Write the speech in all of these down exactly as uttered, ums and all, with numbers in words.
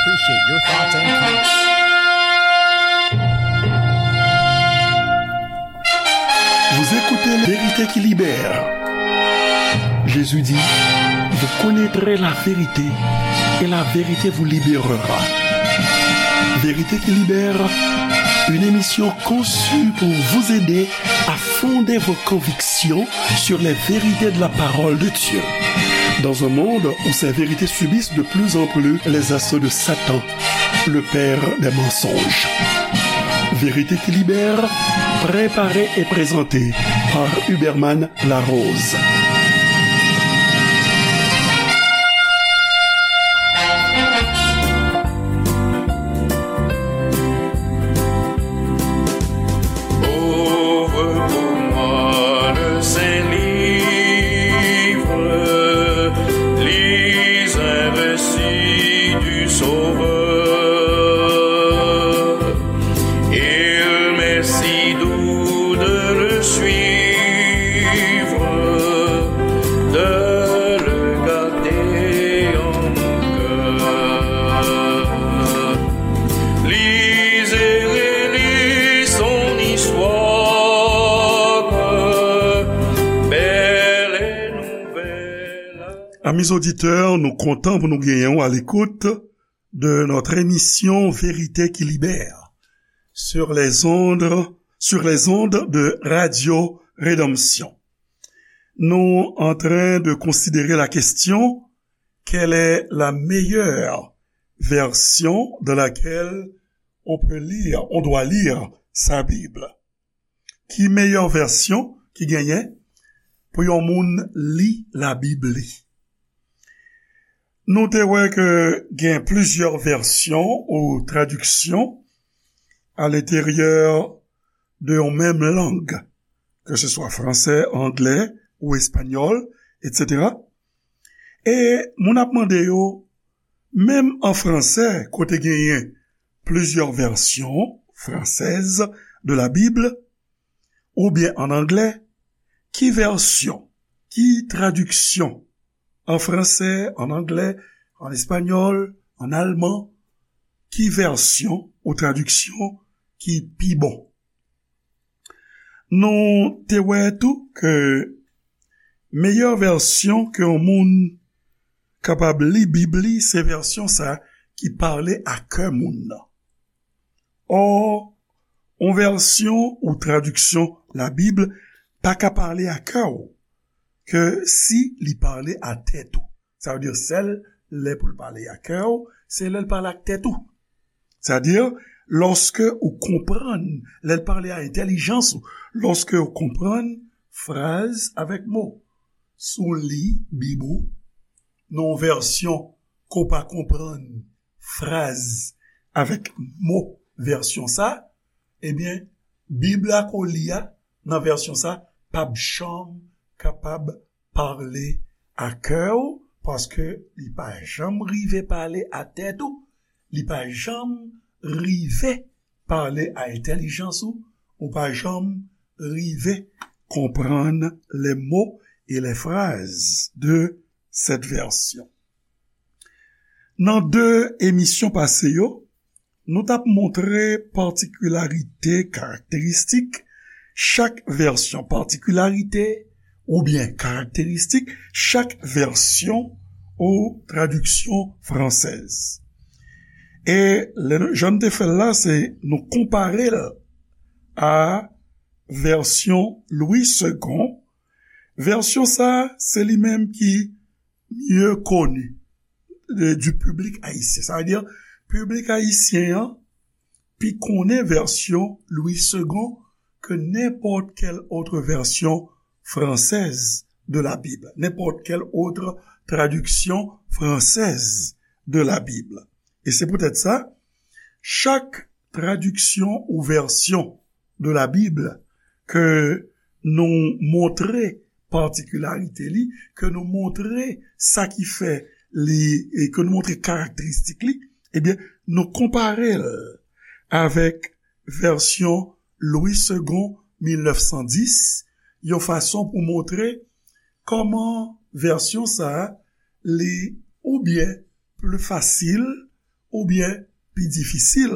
Appreciate your thoughts and comments. Vous écoutez La Vérité qui libère. Jésus dit, vous connaîtrez la vérité et la vérité vous libérera. Vérité qui libère, une émission conçue pour vous aider à fonder vos convictions sur les vérités de la parole de Dieu. Dans un monde où ces vérités subissent de plus en plus les assauts de Satan, le père des mensonges. Vérité qui libère, préparée et présentée par Huberman Larose. Ouvre pour moi le saint livre, lis un récit du Sauveur. Il m'est si doux de le suivre, de le garder en mon cœur. Lis et relis son histoire, belle et nouvelle. Amis auditeurs, nou kontan pou nou genyen w à l'écoute de notre émission Vérité qui libère sur les ondes, sur les ondes de Radio Rédemption. Nous en train de considérer la question, quelle est la meilleure version dans laquelle on peut lire, on doit lire sa Bib? Ki meyè vèsyon ki genyen pou yon moun li Labib li? Nou te wè ke gen plizyè vèsyon ou tradiksyon alenteryè de yon menm lang, ke se swa fransè, anglè ou espanyòl, etsetera. E moun ap mande yo, menm an fransè, kote genyen plizyè vèsyon fransèz de la Bib, oubyen an anglè, ki vèsyon, ki tradiksyon, an fransè, an anglè, an espanyòl, an alman, ki vèsyon ou tradiksyon ki pi bon? Nou te wè tou ke meyè vèsyon ke yon moun kapab li Bib li, se vèsyon sa ki pale a kè moun nan. Ò, yon vèsyon ou tradiksyon Labib pa ka pale a kè w ke si li pale a tèt ou. Sa vle di, sèl lè pou l pale a kè w, se lè l pale ak tèt ou. Sa vle di, lòske ou konprann, lè l pale a entèlijans ou, lòske ou konprann fraz avèk mo. Si w li Bib ou nan yon vèsyon ke w pa konprann fraz avèk mo vèsyon sa, ebyen, Bib la ke w li a, nan vèsyon sa, p ap janm kapab pale a kè w, paske li pa janm rive pale a tèt ou, li pa janm rive pale a entèlijans ou, ou pa janm rive konprann les mots et les phrases de cette version. Nan de emisyon pase yo, nou t ap montre patikilarite, karakteristik chak vèsyon, patikilarite oubyen karakteristik chak vèsyon ou tradiksyon fransèz. E lè nou, jan n te fè l la, se nou konpare l a vèsyon Louis Segond. Vèsyon sa, se li menm ki mieux connu de, du public haïtien. Sa vle di, piblik ayisyen an pi konnen vèsyon Louis Segond ke nenpòt kèl otre vèsyon fransèz de la Bible, nenpòt kèl otre tradiksyon fransèz de la Bible. E se poutèt sa, chak tradiksyon ou vèsyon de la Bib ke nou montre patikilarite li, ke nou montre sa ki fè li, e ke nou montre karakteristik li, ebyen, nou konpare l avèk vèsyon Louis Segond mil nèf san dis, yon fason pou montre kòman vèsyon sa a, li oubyen pli fasil, oubyen pi difisil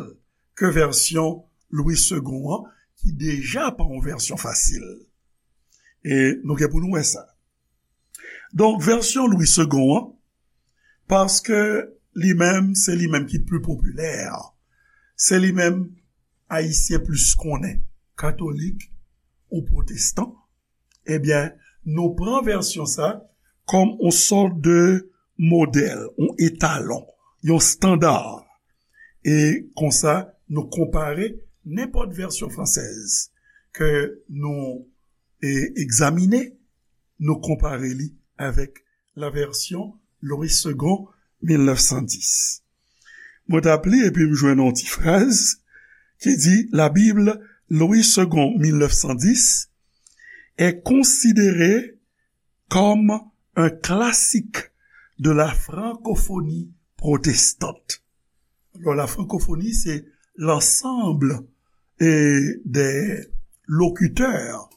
ke vèsyon Louis Segond an, ki deja pa yon vèsyon fasil. E nou gen pou nou wè sa. Donk, vèsyon Louis Segond an, paske li menm, se li menm ki pli popilè, se li menm Ayisyen plis konnen, katolik ou pwotestan, ebyen, nou pran vèsyon sa kòm yon sòt de modèl, yon etalon, yon estanda. E konsa, nou konpare nenpòt vèsyon fransèz ke nou e egzamine, nou konpare li avèk la vèsyon Louis Segond mil nèf san dis. Mwen t ap li epi m jwenn yon ti fraz ki di, La Bible Louis Segond mil nèf san dis est considérée comme un classique de la francophonie protestante. Alors, la francophonie, c'est l'ensemble, eh, des locuteurs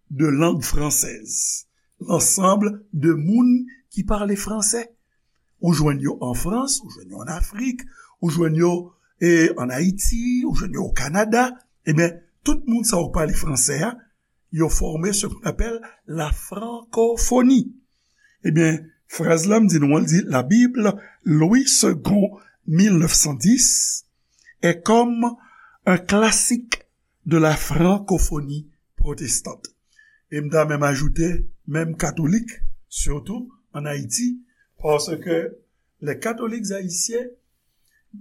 de langue française, l'ensemble de moun ki pale fransè. Ou jwenn yo an Frans, ou jwenn yo an Afrik, ou jwenn yo, eh, an Ayiti, ou jwenn yo o Kanada. Ebyen, tout moun sa yo k pale fransè a, yo fòme ce qu'on appelle la francophonie. Ebyen, fraz la m di nou an, l di, La Bible Louis Segond mil nèf san dis est comme un classique de la francophonie protestante. E m ta menm ajoute, menm katolik, sitou an Ayiti, paske les catholiques haïtiens,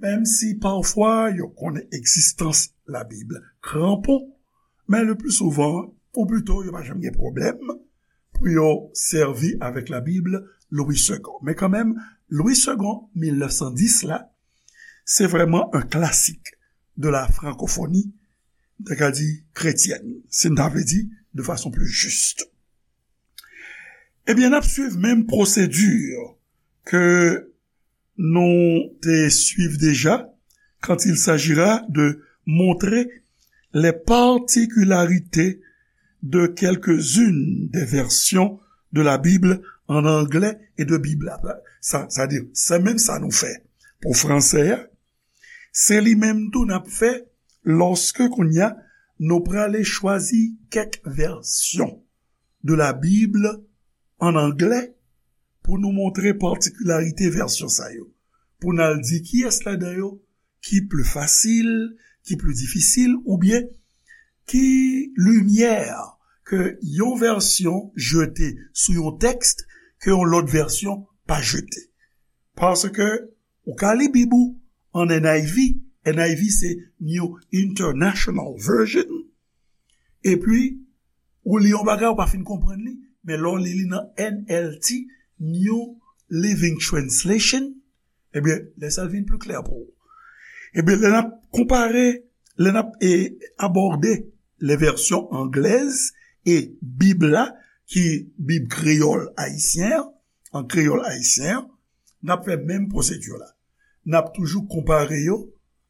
menm si pafwa yo konnen egzistans Labib kranpon, men le pli souvan, ou plito, yo pa janm gen pwoblèm pou yo sèvi avèk Labib Louis Segond. Men kanmenm, Louis Segond mil nèf san dis la, se vrèman un classique de la francophonie, m ta ka di kretyèn, si n ta vle di de fason pli jis. Ebyen, n ap swiv menm pwosedi ke nou te swiv deja quand il s'agira de montrer les particularités de quelques-unes des versions de la Bible en anglais et de Bib la. Sa, sa di, se menm sa nou fè pou fransè a, se li menm tou n ap fè lòske kounye a nou prale chwazi kèk vèsyon de la Bible en anglais pou nou montre patikilarite vèsyon sa yo, pou n al di kiyès ladan yo ki pli fasil, ki pli difisil, oubyen ki limyè ke yon vèsyon jete sou yon tèks ke yon lòt vèsyon pa jete. Paske ou ka li Bib ou an N I V, N I V se New International Version, epi ou li yon bagay, ou pa fin konprann li, men lè w li li nan N L T, New Living Translation, ebyen, lè sa vin pli klè pou ou. Ebyen, lè n ap konpare, lè n ap, e, abòde les versions anglaises e Bib la, ki Bib kreyòl ayisyen an, an kreyòl ayisyen an, n ap fè menm pwosedi la. N ap toujou konpare yo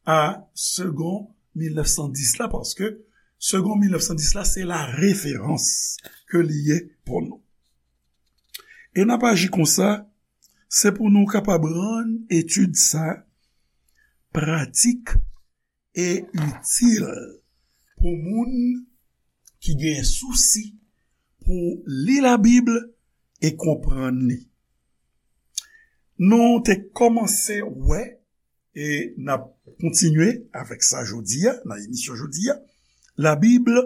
a Segond mil nèf san dis la, paske Segond mil nèf san dis la, se la referans ke li ye pou nou. E n ap aji konsa, se pou nou kapab rann etid sa pratik e itil pou moun ki gen sousi pou li Labib e konprann li. Nou te kòmanse wè, e n ap kontinye avèk sa jodi a, nan emisyon jodi a, La Bible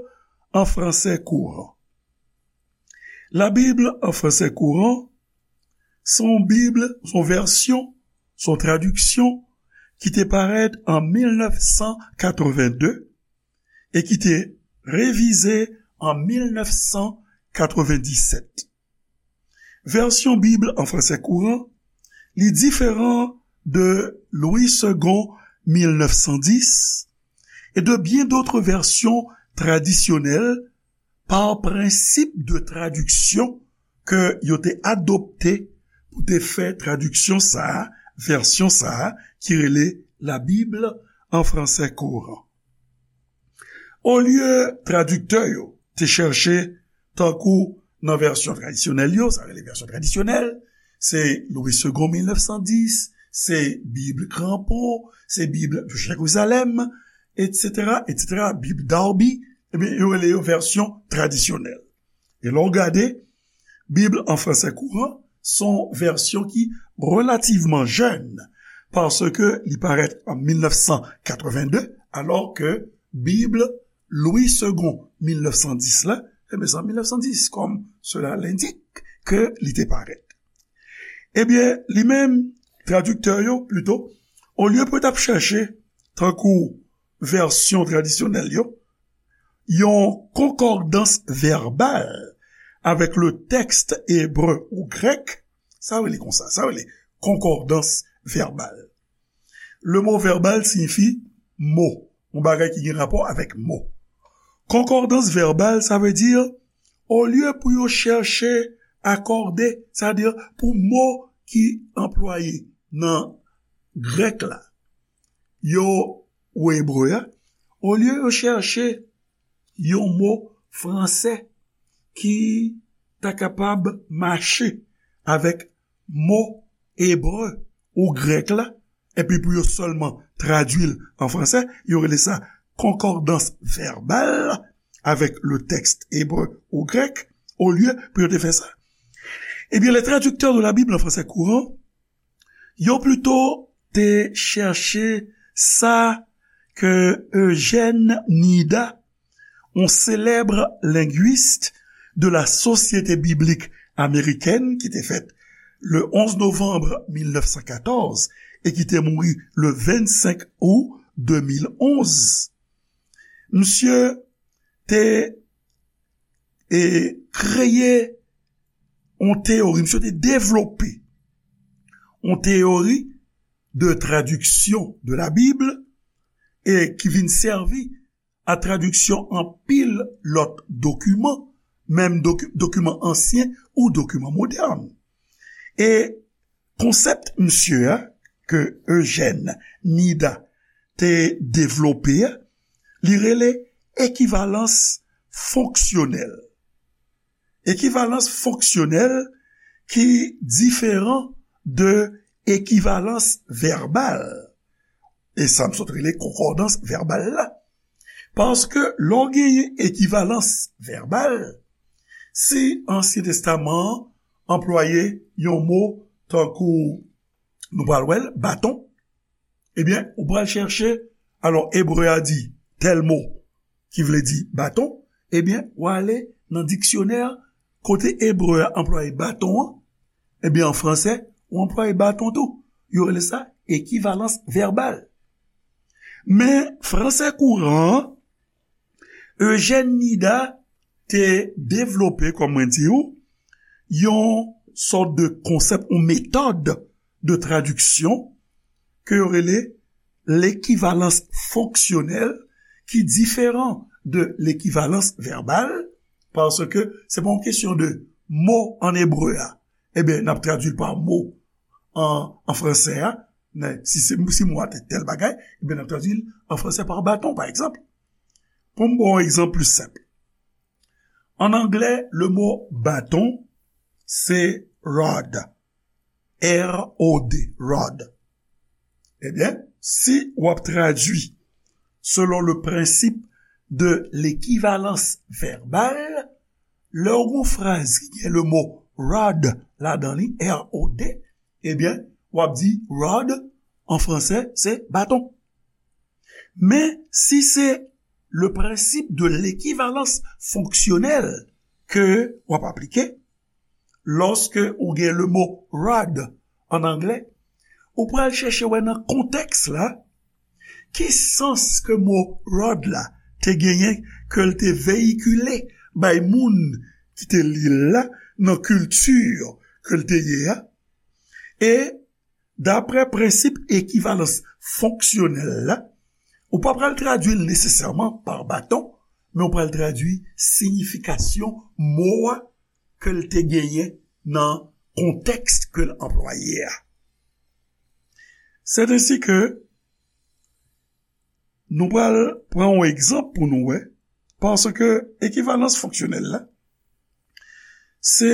en français courant. La Bible en français courant, se yon Bib, se yon vèsyon, se yon tradiksyon ki te parèt an mil nèf san katrevenn de e ki te revize an mil nèf san katrevenndisèt. Vèsyon Bib an fransè kouran, li diferan de Louis Segond mil nèf san dis e de byen dòt vèsyon tradisyonèl pa prensip de tradiksyon ke yo te adopte pou te fè tradiksyon sa a, vèsyon sa a, ki rele La Bible en français courant. Olye tradiktè yo te chèche, tankou nan vèsyon tradisyonèl yo, sa rele vèsyon tradisyonèl, se Louis Segond mil nèf san dis, se Bib Crampon, se Bib Jerizalèm, etsetera, etsetera, Bib Darby, ebyen, yo rele yo vèsyon tradisyonèl. E lè w gade, Bib an fransè kouran se yon vèsyon ki relativman jèn, paske li parèt an mil nèf san katreven de, alò ke Bib Louis Segond mil nèf san dis la, ebyen, se an mil nèf san dis, comme cela l'indique, ke li te parèt. Ebyen, li menm, tradiktè yo, plito, olye pou yo t ap chèche, tankou vèsyon tradisyonèl yo, yon konkòdans vèbal avèk le tèks ebre ou grèk, sa rele konsa, sa rele konkòdans vèbal. Le mo vèbal siyifi mo, yon bagay ki gen rapò avèk mo. Konkòdans vèbal, sa vle di, olye pou yo chèche akòde, sa vle di pou mo ki anplwaye nan grèk la, yo, ou ebre a, olye yo chèche yon mo fransè ki ta kapab mache avèk mo ebre ou grèk la, epi pou yo sèlman tradui l an fransè, yo rele sa konkòdans vèbal avèk le tèks ebre ou grèk, olye pou yo te fè sa. Ebyen, les traducteurs de la Bible en français courant, yo plito te chèche sa ke Eugène Nida, yon selèb lengwis de la Société Biblique Américaine, ki te fèt le onz novanm mil nèf san katòz e ki te mouri le vennsenk out de mil onz. Misye te, e, kreye yon teyori, misye te devlope yon teyori de tradiksyon de la Bib e ki vin sèvi a tradiksyon anpil lòt dokiman, menm doki-, dokiman ansyen ou dokiman modèn. E konsèp misye a, ke Eugène Nida te devlope a, li rele ekivalans fonksyonèl. Ekivalans fonksyonèl ki diferan de ekivalans vèbal. E sa m sot rele konkòdans vèbal la. Paske lè w genyen ekivalans vèbal, si Ansyen Testaman an anplwaye yon mo tankou, nou pral wè l, baton, ebyen, ou pral chèche, alò, ebre a di tèl mo ki vle di baton, ebyen, w ale nan diksyonè kote ebre a anplwaye baton an, ebyen, an fransè, ou anplwaye baton tou. Yo rele sa ekivalans vèbal. Men, fransè kouran an, Eugène Nida te devlope, kòm mwen di w, yon sòt de konsèp, yon metòd de tradiksyon ke yo rele lekivalans fonksyonèl, ki diferan de lekivalans vèbal, paske se pa yon kesyon de mo an ebre a, ebyen, n ap tradui l pa mo an, an fransè a, men si se, si mo a te tèl bagay, ebyen, n ap tradui l an fransè pa baton, pa egzanp. Pou m ba w yon egzanp plis senp. An anglè, le mo baton, se rod. R O D, rod. Ebyen, si w ap tradui selon le principe de l'équivalence verbale, lè w gen yon fraz ki gen le mo rod ladan li, R O D, ebyen, w ap di rod, an fransè, se baton. Men, si se le principe de l'équivalence fonctionnelle ke w ap aplike, lòske ou gen le mo rod an anglè, ou pral chèche wè nan kontèks la, ki sans ke mo rod la te genyen, ke l te veyikile bay moun ki te li l la, nan kilti ke l te ye a. E daprè prensip ekivalans fonksyonèl la, ou pa pral tradui l nesesèman pa baton, men ou pral tradui siyifikasyon mo a ke l te genyen nan kontèks ke l anplwaye a. C'est ainsi que nou pral pran yon egzanp pou nou wè, paske ekivalans fonksyonèl la, se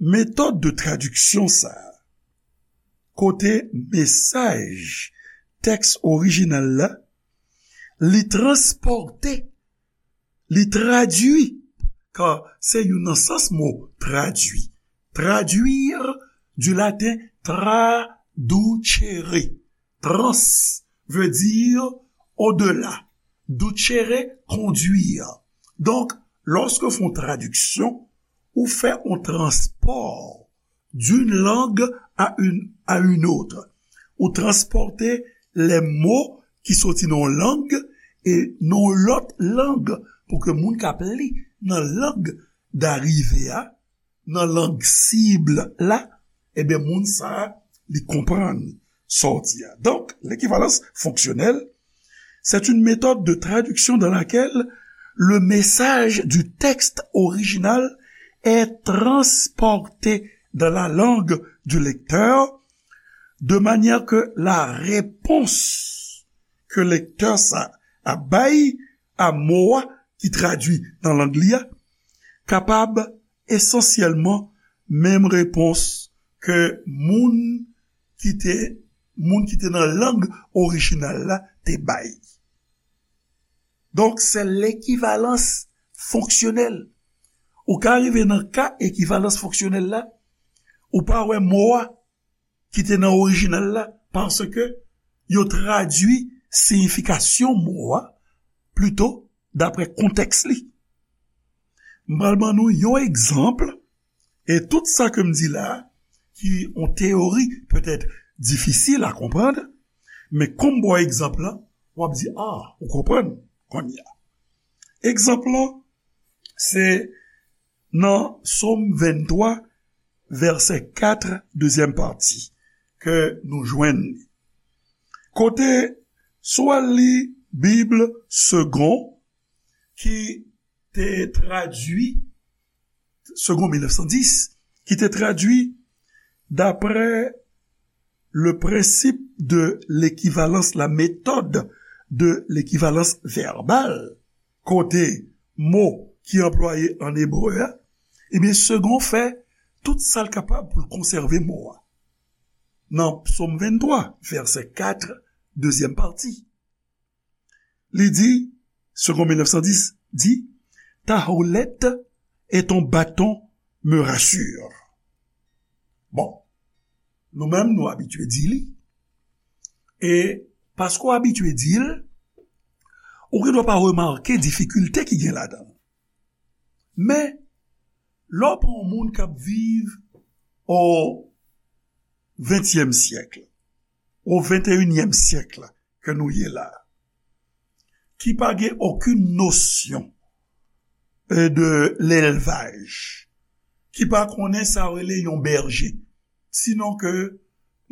metòd de tradiksyon sa a, kote mesaj tèks orijinal la, li transpòte, li tradui, kar se youn nan sans mo tradui. Traduire du latin traducere. Trans veut dire au-delà. Ducere, conduire. Donk, lòske w fè yon tradiksyon, ou fè yon transpò d'une langue à une, à une autre. Ou transpòte lè mo ki soti nan yon lang e nan yon lòt lang pou ke moun k ap li nan lang darive a, nan lang sib la, ebyen, moun sa a, li konprann sa w di a. Donc, l'équivalence fonctionnelle, c'est une méthode de traduction dans laquelle le message du texte original est transporté dans la langue du lecteur, de manière que la réponse ke lektè sa a bay a mo a ki tradui nan lang li a kapab esansyèlman menm repons ke moun ki te, moun ki te nan lang orijinal la te bay. Donk, se lekivalans fonksyonèl. Ou ka rive nan ka ekivalans fonksyonèl la, ou pa wè mo a ki te nan orijinal la, paske yo tradui siyifikasyon mo a plito dapre kontèks li. M pral ban nou yon egzanp, e tout sa ke m di la, ki yon teyori petèt difisil a konprann, men kòm m ba w egzanp lan, w ap di, ah, ou konprann kounye a. Egzanp lan, se nan Sòm venntwa, vèsè kat, dezyèm pati, ke nou jwenn li. Kote, si w al li Bib Segond, ki te tradui, Segond mil nèf san dis, ki te tradui d'après le principe de l'équivalence, la méthode de l'équivalence verbale, kote mo ki anplwaye an ebre a, ebyen, Segond fè tout sa l kapab pou l konsève mo a. Nan Sòm venntwa, vèsè kat, dezyèm pati, li di, Segond mil nèf san dis di, ta houlette et ton bâton me rassurent. Bon, nou menm, nou abitye di li. E paske w abitye di l, ou gendwa pa remake difikilte ki gen ladan l. Men, lè w pran yon moun k ap viv o ventyèm syèk, o venteyinyèm syèk la ke nou ye la, ki pa gen okenn nosyon, e, de lèlvaj, ki pa konnen sa yo rele yon bèje, sinon ke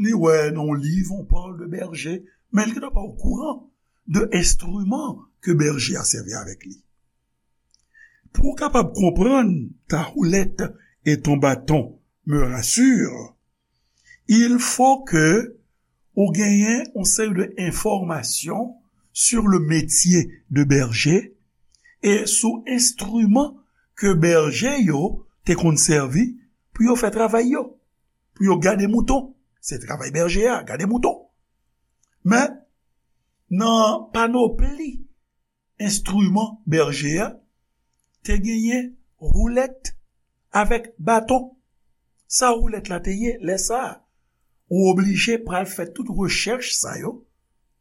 li wè nan yon liv, on parle de berger, men li gendwa pa okouran de enstriman ke bèje a sèvi avèk li. Pou w kapab konprann ta houlette et ton bâton me rassurent, il faut que ou genyen yon seri de enfòmasyon sur le métier de berger e sou enstriman ke bèje yo te konn sèvi pou yo fè travay yo, pou yo gade mouton. Se travay bèje a, gade mouton. Men, nan panopli enstriman bèje a, te genyen houlette avèk baton. Sa houlette la te ye lè sa a? Ou oblije pral fè tout rechèch sa yo.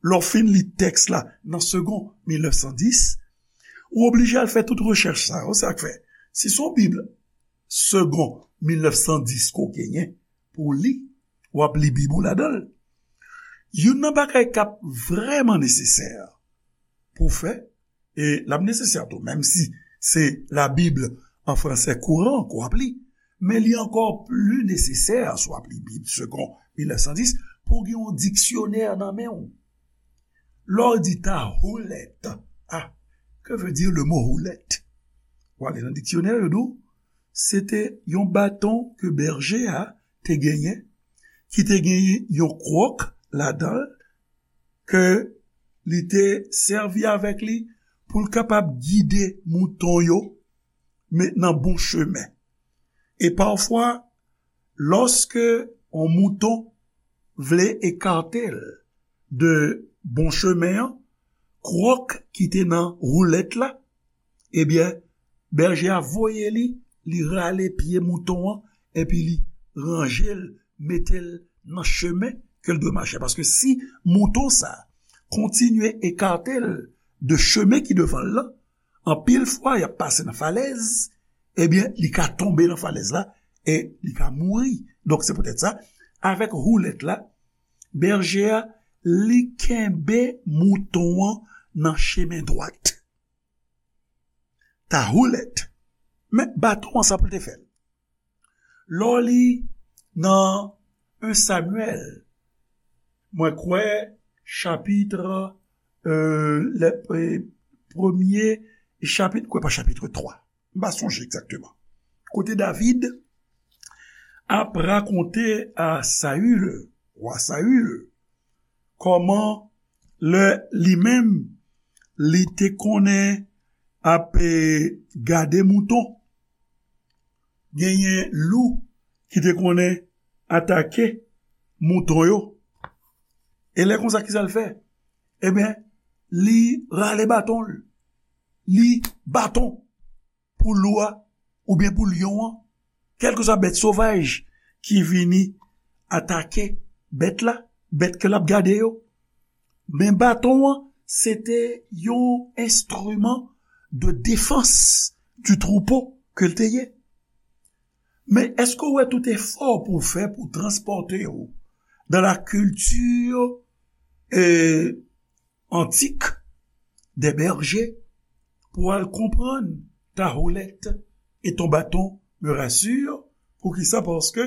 Lè w fin li tèks la nan Segond mil nèf san dis, ou oblije al fè tout rechèch sa yo. Se sa k fè, si se yon Bib Segond mil nèf san dis ke w genyen pou w li, w ap li Bib ou ladan l. Youn nan bagay k ap vrèman nesesè pou w fè, e l ap nesesè tou, menm si se la Bible en français courant ke w ap li, men li ankò pli nesesè si w ap li Bib Segond mil nèf san dis, pou w gen yon diksyonè nan men w. Lè w di ta houlette, ah, que veut dire le mot houlette? W ale nan diksyonè, yo di w, se te yon baton ke bèje a te genyen, ki te genyen yon kwòk ladan l, ke li te sèvi avèk li pou l kapab gide mouton yo, men nan bon chemen. E pafwa, lòske yon mouton vle ekate l de bon chemen an, kwòk ki te nan woulèt la, ebyen, bèje a voye li, li rale pye mouton an, epi li ranje l, mete l nan chemen ke l dwe mache. Paske si mouton sa a kontinye ekate l de chemen ki devan l lan, anpil fwa, y ap pase nan falèz, ebyen, li ka tonbe nan falèz la e li ka mouri. Donk, se poutèt sa, avèk woulèt la, bèje a, li kenbe mouton an nan chemen dwat. Ta woulèt. Men baton an, sa pou l te fè l. Lè w li nan en Samyèl, mwen kwè, chapit, euh, le, euh, premye chapit, kwè pa chapit twa. M pa sonje egzakteman. Kote David ap rakonte a Sayil, wa Sayil, kòman lè li menm, li te konnen ap, eh, gade mouton, genyen lou ki te konnen atake mouton yo. E lè konsa, kisa l fè? Ebyen, li rale baton l. Li baton pou lou a, oubyen pou lyon an, kèlkeswa bèt sovaj ki vini atake bèt la, bèt ke l ap gade yo. Men baton an, se te yon enstriman de defans du troupeau ke l te ye. Men èske w wè tout efò pou w fè pou w transpòte w dans la culture, euh, antique des bergers pou al konprann ta houlette et ton bâton me rassure. Poukisa? Paske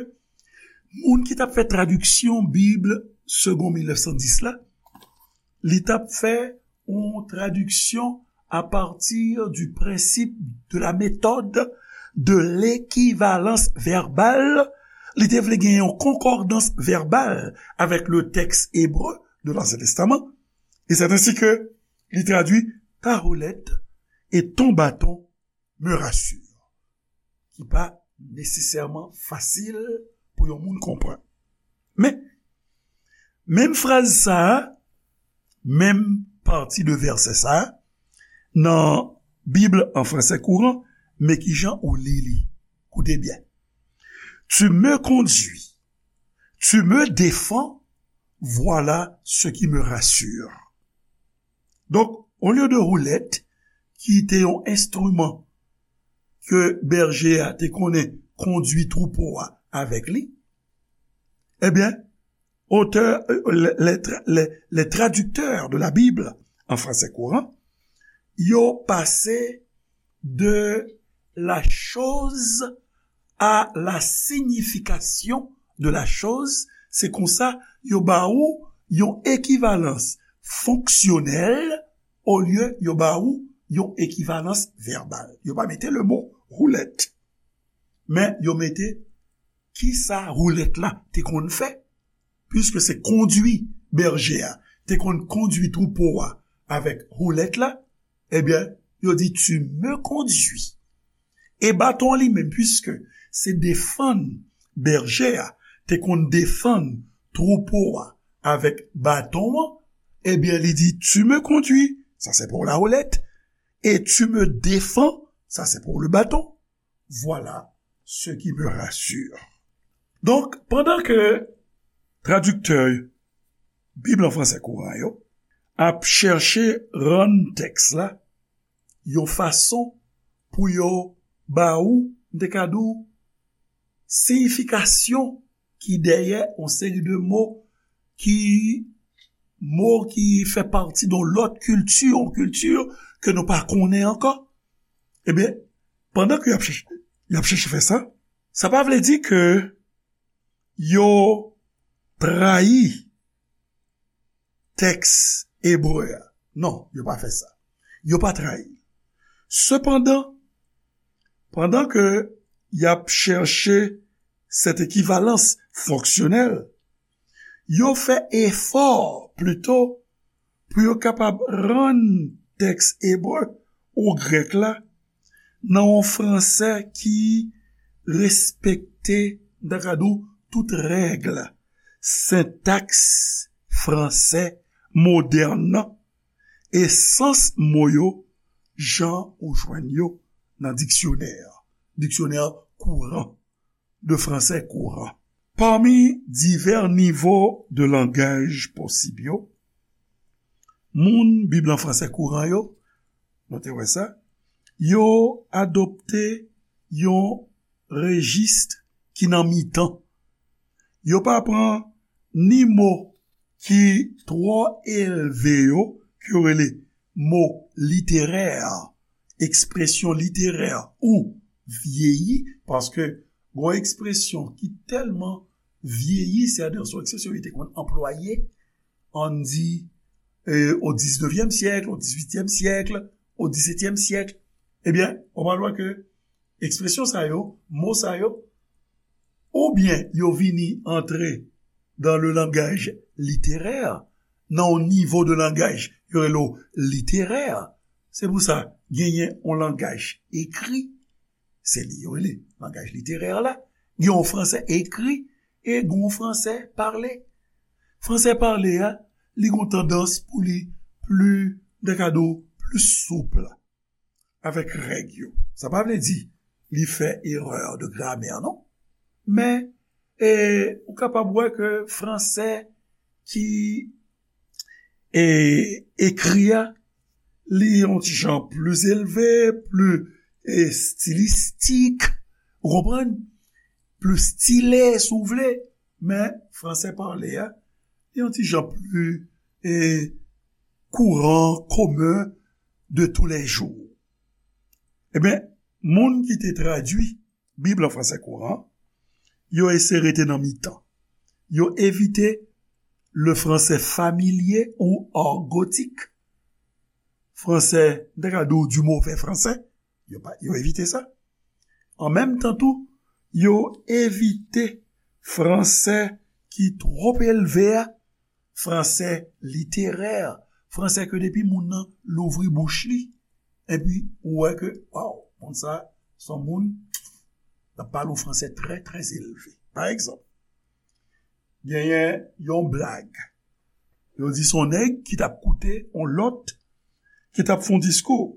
moun ki t ap fè tradiksyon Bib Segond mil nèf san dis la, li t ap fè yon tradiksyon à partir du principe de la méthode de l'équivalence verbale. Li te vle gen yon konkòdans vèbal avèk le tèks ebre de l'Ancien Testament. E c'est ainsi que li tradui ta houlette et ton bâton me rassure, ki pa nesesèman fasil pou yon moun konprann. Men, menm fraz sa a, menm pati de vèsè sa a, nan Bib an fransè kouran, men kijan ou li li. Koute byen. Tu me conduis, tu me défends, voilà ce qui me rassure. Donk, olye de houlette, ki te yon enstriman ke bèje a te konnen kondui twoupo a avèk li, ebyen, otè, euh, les, les tra-, les, les traducteurs de la Bible en français courant, yo pase de la chose à la signification de la chose. Se konsa, yo ba ou yon ekivalans fonksyonèl olye yo ba ou yon ekivalans vèbal. Yo pa mete le mo houlette, men yo mete kisa houlette la te konn fè, puiske se kondui bèje a te konn kondui twoupo a avèk houlette la, ebyen, yo di, tu me conduis. E baton li menm, puiske se defann bèje a te konn defann twoupo a avèk baton an, ebyen, li di, tu me conduis, ça c'est pour la houlette, et tu me défends, ça c'est pour le bâton. Voilà ce qui me rassure. Donk, pandan ke tradiktè Bib an fransè kouran yo ap chèche rann tèks la yon fason pou yo ba ou, m te ka di w, siyifikasyon ki dèyè yon seri de mo ki, mo ki fè pati de yon lòt kilti, yon kilti ke nou pa konnen ankò. Ebyen, pandan ke y ap chèche, y ap chèche fè sa, sa pa vle di ke yo trayi tèks ebre a. Non, yo pa fè sa. Yo pa trayi l. Sepandan, pandan ke y ap chèche cette équivalence fonctionnelle, yo fè efò plito pou yo kapab rann tèks ebre ou grèk la nan yon fransè ki respekte, m ta ka di w, tout règ. sentaks fransè modèn nan e sans mo yo jan ou jwenn yo nan diksyonè, diksyonè kouran, de français courant. Pami divè nivo de langaj posib yo, moun Bib lan fransè kouran yo, nou te wè sa, yo adopte yon rejis ki nan mitan. Yo pa pran ni mo ki twò elve yo, ke yo rele mo literè, ekspresyon literè ou vyeyi, paske gon ekspresyon ki tèlman vyeyi, sètadi se yon ekspresyon yo te konn anplwaye, ann di, e, o diznèvyèm syèk, o dizuityèm syèk, o disetyèm syèk. Ebyen, ou pral wè ke ekspresyon sa yo, mo sa yo, oubyen yo vini antre dans le langage littéraire, nan yon nivo de langaj yo rele w literè. Se pou sa, genyen yon langaj ekri, se li yo rele langaj literè la, gen yon fransè ekri e gen yon fransè pale. Fransè pale a, li gen yon tandans pou li pli, m ta ka di w, pli soup avèk règ yo. Sa pa vle di li fè erè de gramè, non. Men, e, ou kapab wè ke fransè ki, e, ekri a, li yon ti jan pli elve, pli, e, estilistik, ou konprann? Pli stile, si w vle, men fransè pale a, li yon ti jan pli, e, kouran, komen, de tous les jours. Ebyen, moun ki te tradui Bib lan fransè kouran, yo eseye rete nan mitan. Yo evite le français familier ou argotique, fransè, m ta ka di w, du mauvais français, yo pa, yo evite sa. An menm tan tou, yo evite fransè ki twòp elve a, fransè literè, fransè ke depi moun nan louvri bouch li, epi ou wè ke, waw, moun sa, se yon moun, l ap pale yon fransè trè, trè elve. Pa egzanp, genyen yon blag. Yo di se yon nèg ki t ap koute yon lòt ki t ap fè yon diskou.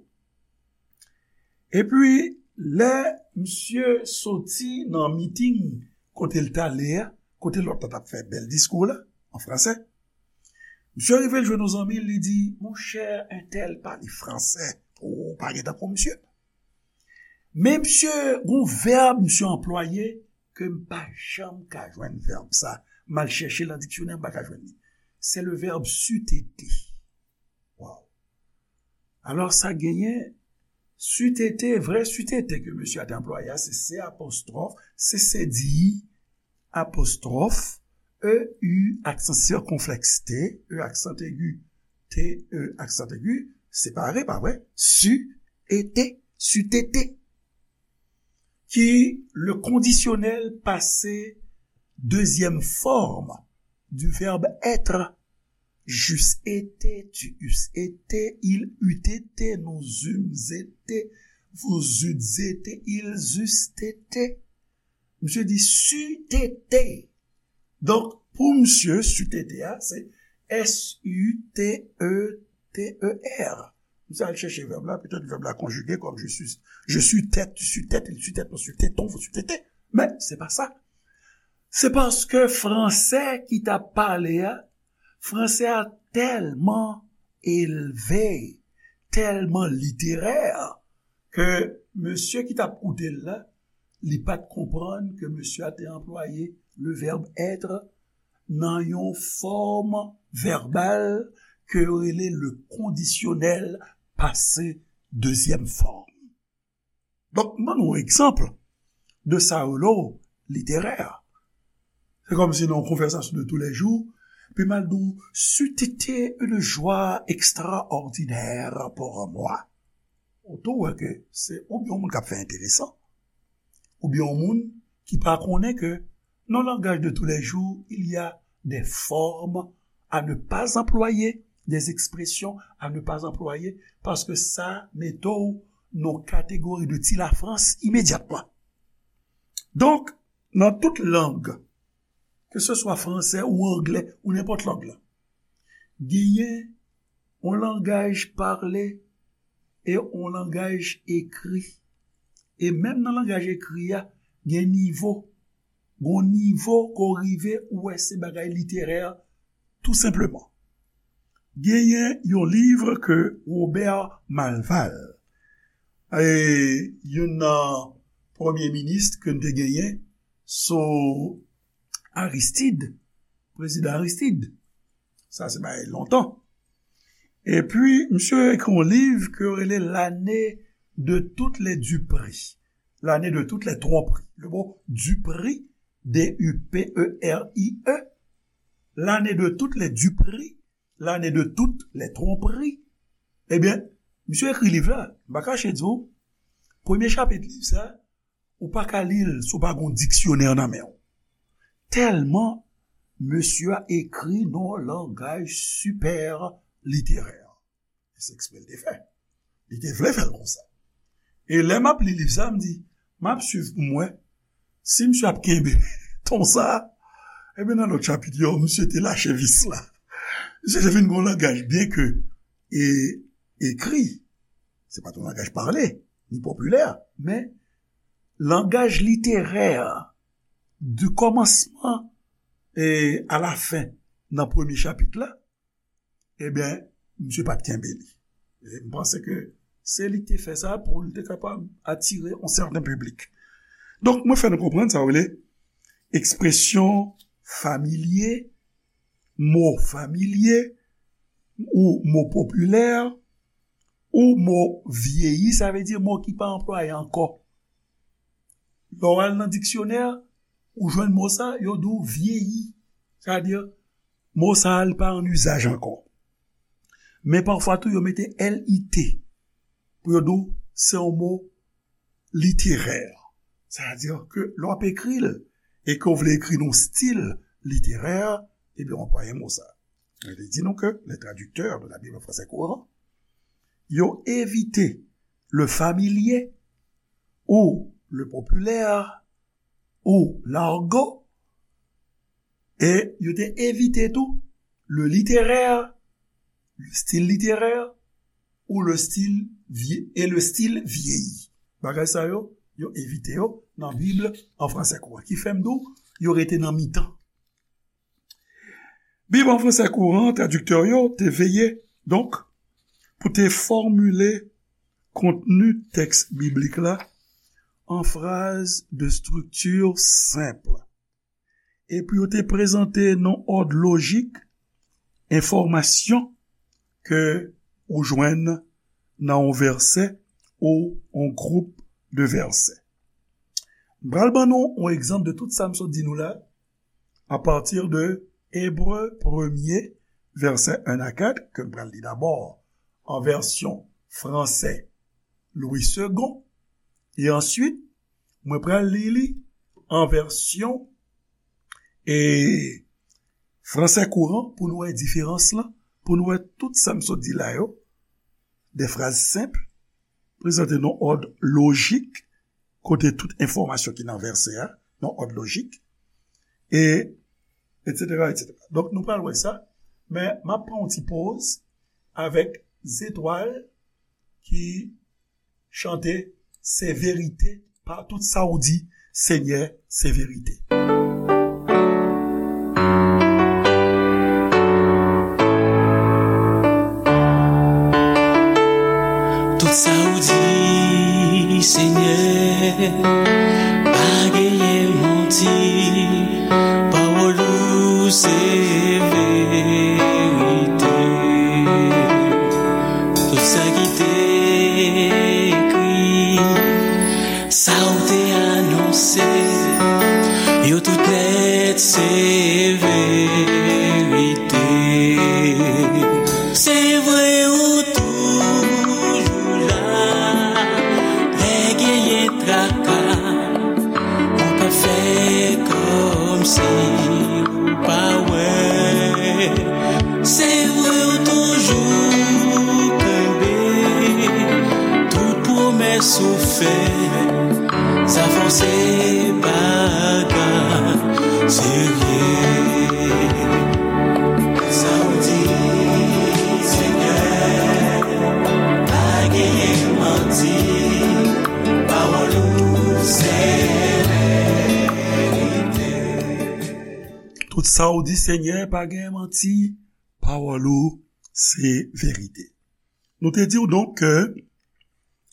Epi, lè misye soti nan miting kote l t ale a, kote lòt la t ap fè bèl diskou la, an fransè, misye rive l jwenn yon zanmi l, li di, monchè, entèl pale fransè, ou pa gen tankou misye. Men misye, gon vèb misye anplwaye ke m pa janm ka jwenn vèb sa. M al chèche l nan diksyonè, m pa ka jwenn li. Se le vèb sutete. Waw. Alò, sa genyen sutete, vrè sutete ke mesye a te anplwaye a, se C apostwòf, C C D I apostwòf, E U aksan sikonflèks T, E aksan egi, T E aksan egi, separe, pa vre? Su, ete, sutete. Ki le kondisyonèl pase dezyèm fòm du verbe être. J'eusse été, tu eusses été, il eût été, nous eûmes été, vous eûtes été, ils eussent été. Misye di sutete. Donk, pou misye, sutete a, se S U T E T E R. Misye al chèche vèb la, petèt vèb la konjige kòm je suis, je suis tête, tu sus tête, il sus tête, nous sus tétons, vous sus tétez. Men, se pa sa. Se paske fransè ki t ap pale a, fransè a tèlman elve, tèlman literè, ke mesye ki t ap koute l la, li pa t konprann ke mesye a te anplwaye le verbe être nan yon fòm vèbal ke yo rele le kondisyonèl pase dezyèm fòm. Donk, m ban nou yon egzanp de sa yo rele literè. Se kòmsi nan yon konvèsasyon de tous les jours, epi m al di w, c'eût été une joie extraordinaire pour moi. Ou tou wè ke se oubyen yon moun k ap fè enteresan, oubyen yon moun ki pa konnen ke nan langaj de tous les jours, il y a des formes à ne pas employer, des expressions à ne pas employer, paske sa mete w nan kategori de ti Lafrans imedyatman. Donk, nan tout lang keseswa fransè ou anglè ou nenpòt lang lan. Genyen yon langaj pale e yon langaj ekri. E menm nan langaj ekri a, gen nivo. Gon nivo ke w rive, ou wè se bagay literè, tou senpleman. Genyen yon liv ke Robert Malval, e, youn nan premye minis ke n te genyen sou Aristide, prezidan Aristide. Sa se bagay lontan. Epi, misye ekri yon liv ke yo rele L'année de toutes les duperies. L'année de toutes les tromperies. Le mot duperie, D U P E R I E, l'année de toutes les duperies, l'année de toutes les tromperies. Ebyen, misye ekri liv la, m pa kache di w, premye chapit liv sa, ou pa ka li l si w pa gen yon diksyonè nan men w. Tèlman mesye a ekri nan yon langaj sipè literè. E se eksprè l te fè. Li te vle fè l konsa. E lè m ap li liv sa, m di, m ap swiv pou m wè si misye ap kenbe ton sa a. Ebyen, nan lòt chapit yo, misye te lache vis la. Misye te vin gen yon langaj, byen ke e, ekri, se pa t yon langaj pale, ni popilè, men langaj literè, di kòmansman e a la fen nan premye chapit la, ebyen, misye pa t kenbe li. E m panse ke se li ki te fè sa pou l te kapab atire yon sèten piblik. Donk, mwen fè nou konprann sa w rele ekspresyon familye, mo familye, ou mo popilè, ou mo vyeyi, sa vle di mo ki pa anplwaye ankò. Lè w al nan diksyonè, ou jwenn mo sa, yo di w vyeyi. Sa vle di, mo sa a, li pa an izaj ankò. Men pafwa tou, yo mete L I T pou yo di w se yon mo literè. Sa vle di ke lè w ap ekri l e ke w vle ekri nan yon stil literè, ebyen, w anplwaye mo sa. Mwen te di nou ke les traducteurs de la Bible en français courant, yo evite le familier ou le populaire ou l'argot, e yo te evite tou le littéraire, le style littéraire, ou le style vie-, et le style vieilli. Bagay sa yo, yo evite yo nan Bib an fransè kouran. Ki fè m di w, yo rete nan mitan. Bib an fransè kouran, tradiktè yo te veye, donk, pou te fòmile kontni tèks biblik la an fraz de strikti senp. Epi yo te prezante nan òd lojik enfòmasyon ke ou jwenn nan yon vèsè ou yon gwoup de vèsè. M pral ban nou yon egzanp de tout sa m sot di nou la, apati de Ebre premye, vèsè en a kat, ke m pral li dabò an vèsyon fransè Louis Segond, e answit, mwen pral li li an vèsyon, e, fransè kouran pou nou wè diferans lan, pou nou wè tout sa m sot di la yo, de fraz senp, prezante nan òd lojik, kote tout enfòmasyon ki nan vèsè a, nan òd lojik, e, etsetera, etsetera. Donk, nou pral wè sa, men m ap pran yon ti poz avèk Zetwal ki chante, se verite, pa tout sa w di, Senyè, se verite. Tout sa w di, Senyè, pa genyen manti, pawòl ou se verite. Tout sa ki te ekri, sa w te anonse, yo tout nèt se verite. Se vre ou toujou la, lè genyen traka, ou pa fè kòmsi ou pa wè. Se vre ou toujou kenbe tout pwomès ou fè. Sa fò se bagay Serye, sa w di, Senyè, pa genyen manti, pawòl ou se verite. Tout sa w di, Senyè, pa genyen manti, pawòl ou se verite. Nou te di w donk ke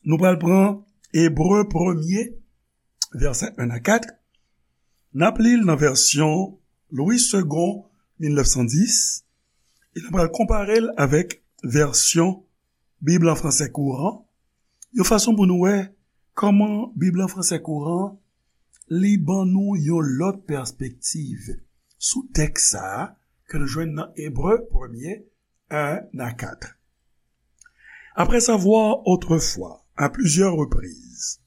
nou pral pran Ebre premye, vèsè en a kat. N ap li l nan vèsyon Louis Segond, mil nèf san dis, e n ap pral konpare l avèk vèsyon Bib an fransè kouran, yon fason pou nou wè kòman Bib an fransè kouran li ban nou yon lòt pèspektiv sou tèks sa a ke nou jwenn nan Ebre premye, en a kat. Après avoir autrefois, à plusieurs reprises,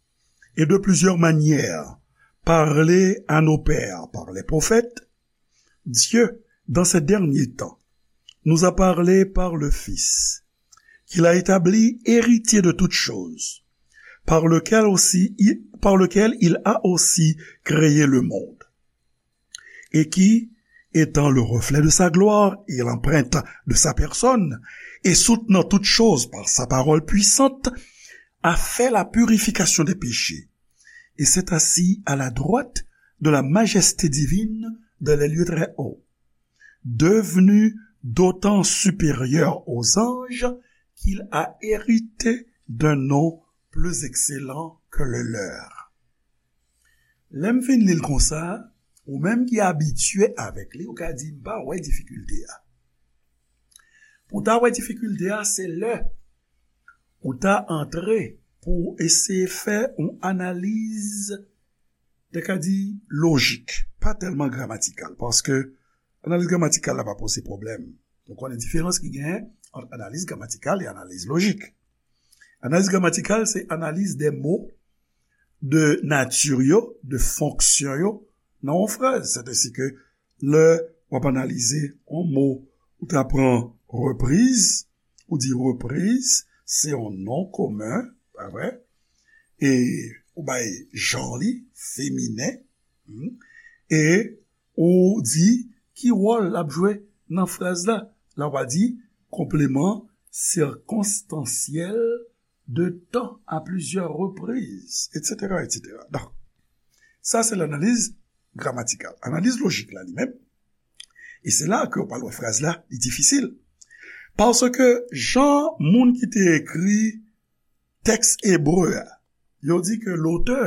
et de plusieurs manières, parlé à nos pères par les prophètes, Dieu, dans ces derniers temps, nous a parlé par le Fils, qu'il a établi héritier de toutes choses, par lequel aussi, par lequel il a aussi créé le monde, et qui, étant le reflet de sa gloire et l'empreinte de sa personne, et soutenant toutes choses par sa parole puissante, a fait la purification des péchés, et s'est assis à la droite de la majesté divine dans les lieux très hauts, devenu d'autant supérieur aux anges qu'il a hérité d'un nom plus excellent que le leur. Lè m fin li l konsa, ou menm ki abitye avèk li, ou ka di, "M pa wè difikilte a." Pou w ta wè difikilte a, se lè ou ta antre pou w eseye fè yon analiz, te ka di, lojik, pa tèlman gramatikal, paske analiz gramatikal la pa poze pwoblèm. Nou konnen diferans ki genyen ant analiz gramatikal e analiz lojik. Analiz gramatikal, se analiz de mo, de nati yo, de fonksyon yo nan yon fraz. Sètadi ke lè w ap analize yon mo, ou ta pran repriz, ou di repriz, se yon non komen, pa vre? E ou bay jan li, feminen, hmm, e ou di ki wòl l ap jwe nan fraz la. La w a di konpleman sikonstansyèl de tan a plizyè repriz, etsetera, etsetera. Donk, sa se lanaliz gramatikal. Analiz lojik la li menm, e se la ke w pral wè fraz la, li difisil. Paske jan moun ki te ekri tèks ebre a, yo di ke lotè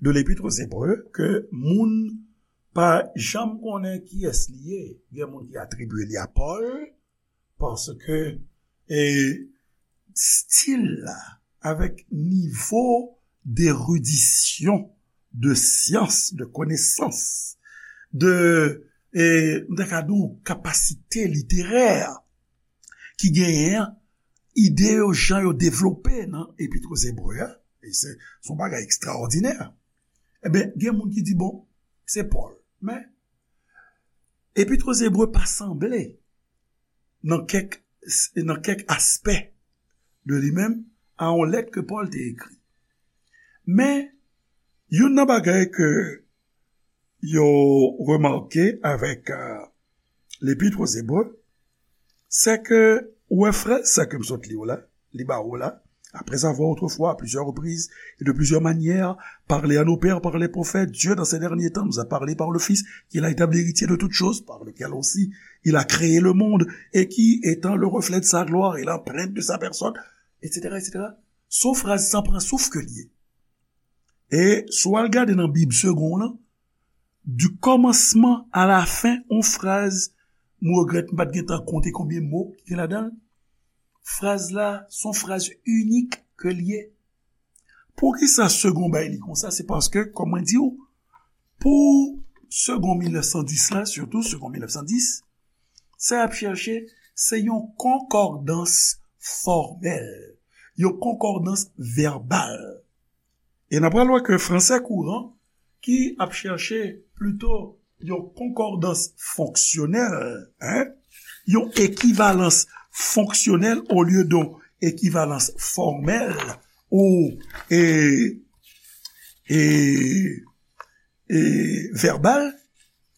de L'Épître aux Hébreux, ke moun pa janm konnen kiyès li ye. Gen moun ki atribye li a Pòl, paske, e, stil la, avèk nivo deridisyon, de syans, de konesans, de, e, m ta ka di w, kapasite literè ki genyen an, ide yo, jan yo devlope nan Epit aux Hébreux a, e se, se yon bagay ekstraòdinè. Ebyen, gen moun ki di, bon, se Pòl. Men, Epit aux Hébreux pa sanble nan kèk, nan kèk aspè de li menm a yon lèt ke Pòl te ekri. Men, youn nan bagay ke yo remake avèk, euh, L'Épître aux Hébreux, se ke ou wè fraz sa ke m sot li w la, li ba ou la, après avoir autrefois, à plusieurs reprises et de plusieurs manières, parlé à nos pères par les prophètes, Dieu, dans ces derniers temps, nous a parlé par le Fils, qu'il a établi héritier de toutes choses, par lequel aussi il a créé le monde, et qui, étant le reflet de sa gloire et l'empreinte de sa personne, etsetera, etsetera. Se yon fraz san pran souf ke l ye. E si w al gade nan Bib Segond lan, du commencement à la fin, yon fraz, m regrèt m pa t gentan konte konbyen mo ki gen ladan l. Fraz la, se yon fraz inik ke l ye. Poukisa Segond bay li konsa? Se paske, kòm mwen di w, pou Segond mil nèf san dis la, sitou Segond mil nèf san dis, sa y ap chèche, se yon konkòdans fòmèl, yon konkòdans vèbal. E n ap pral wè ke fransè kouran, ki ap chèche plito yon konkòdans fonksyonèl, en, yon ekivalans fonksyonèl olye de yon ekivalans fòmèl ou, e, e, e vèbal,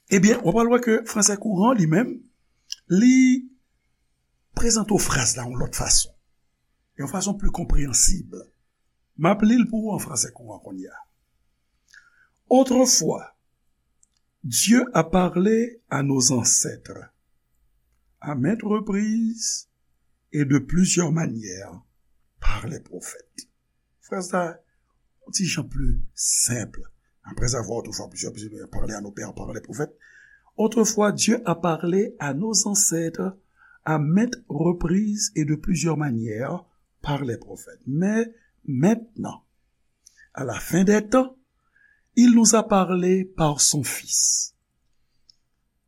Ebyen, w pral wè ke fransè kouran li menm, li prezante w fraz la yon lòt fason, yon fason pli konpreyansib. M ap li l pou ou an fransè kouran kounye a. Autrefois, Dieu a parlé à nos ancêtres, à maintes reprises et de plusieurs manières, par les prophètes. Fraz la, yon ti jan pli senp. Après avoir autrefois plusieurs, plusieurs parlé à nos pères par les prophètes. Autrefois, Dieu a parlé à nos ancêtres à maintes reprises et de plusieurs manières par les prophètes. Mais maintenant, à la fin des temps, il nous a parlé par son Fils.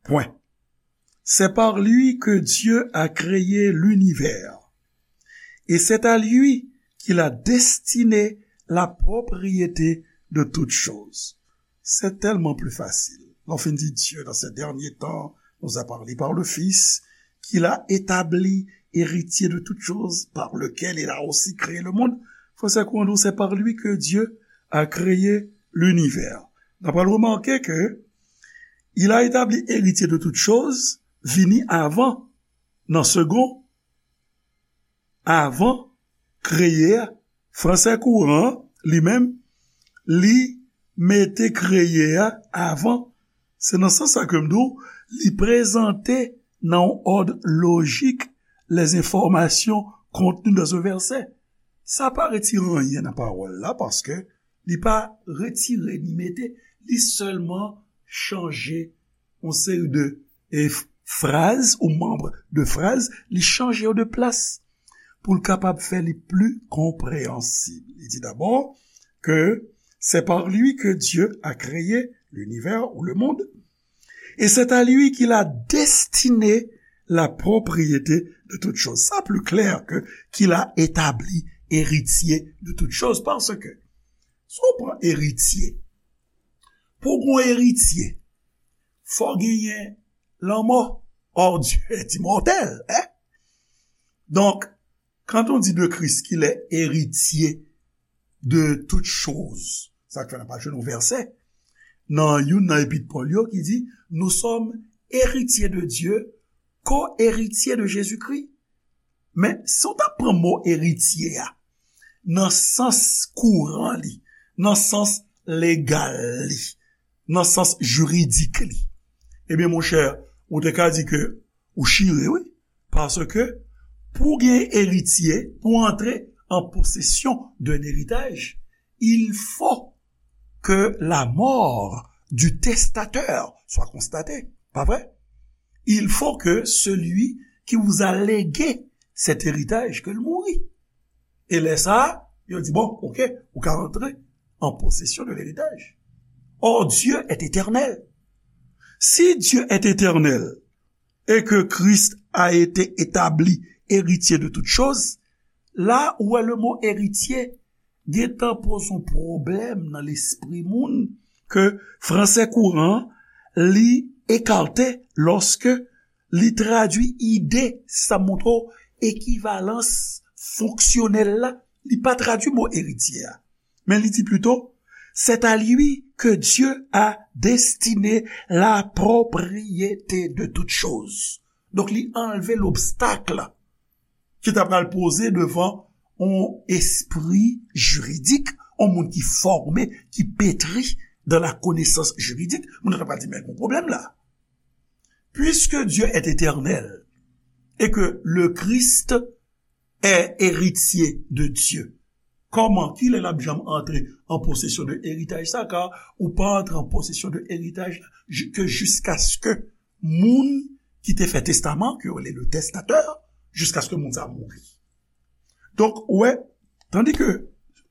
Point. C'est par lui que Dieu a créé l'univers. Et c'est à lui qu'il a destiné la propriété de toutes choses. C'est tellement plus facile. Lè w fin di Dieu dans ces derniers temps nous a parlé par le Fils, qu'il a établi héritier de toutes choses, par lequel il a aussi créé le monde. Fransè kouran di w, c'est par lui que Dieu a créé l'univers. N ap remake ke il a établi héritier de toutes choses vini avan, nan segon, avan kreye a. Fransè kouran, li menm, li mete kreye a avan. Se nan sans sa ke m di w, li prezante nan yon òd lojik les informations contenues dans un verset. Sa pa retire anyen nan pawòl la, paske li pa retire ni mete, li sèlman chanje yon seri de, e, f-, fraz ou manm de fraz, li chanje yo de plas pou l kapab fè li pli konpreyansib. Li di dabò ke c'est par lui que Dieu a créé l'univers ou le monde, et c'est à lui qu'il a destiné la propriété de toutes choses. Sa pli klè ke qu'il a établi héritier de toutes choses, paske si w pran eritye, pou w gen yon eritye, fò genyen lanmò. Or, Dieu est immortel, hein? Donc, quand on dit de Christ qu'il est héritier de toutes choses, sa k fè n ap jwenn yon vèsè nan youn nan epit Pòl yo ki di, nous sommes héritiers de Dieu, co-héritiers de Jésus-Christ. Men, si w ta pran mo eritye a nan sans kouran li, nan sans legal li, nan sans jiridik li, ebyen, monchè, ou te ka di ke ou chire, wi. Paske, pou gen eritye, pou antre an posesyon d'un héritage, il faut que la mort du testateur soit constatée. Pa vre? Il faut que celui qui vous a légué cet héritage, ke l mouri. E lè sa a, yo di, bon, ok, ou ka antre en possession de l'héritage. Or, Dieu est éternel. Si Dieu est éternel et que Christ a été établi héritier de toutes choses, la ou wè le mot héritier gentan poze yon pwoblèm nan lespri moun ke fransè kouran li ekate lòske li tradui ide sa montre w ekivalans fonksyonèl la, li pa tradui mo eritye a. Men li di plito, c'est à lui que Dieu a destiné la propriété de toutes choses. Donk, li anlve lobstak ki ta pral poze devan yon espri jiridik, yon moun ki fòme, ki petri dans la connaissance juridique, moun nan ta pral di, men, gon pwoblèm la. Puisque Dieu est éternel et que le Christ est héritier de Dieu, kòman, kilè l ap janm antre an posesyon de eritaj sa? Kar ou pa antre an posesyon de eritaj la ke jiskaske moun ki te fè testaman, ke yo rele le testateur, jiskaske moun sa mouri. Donk, ou wè, tandi ke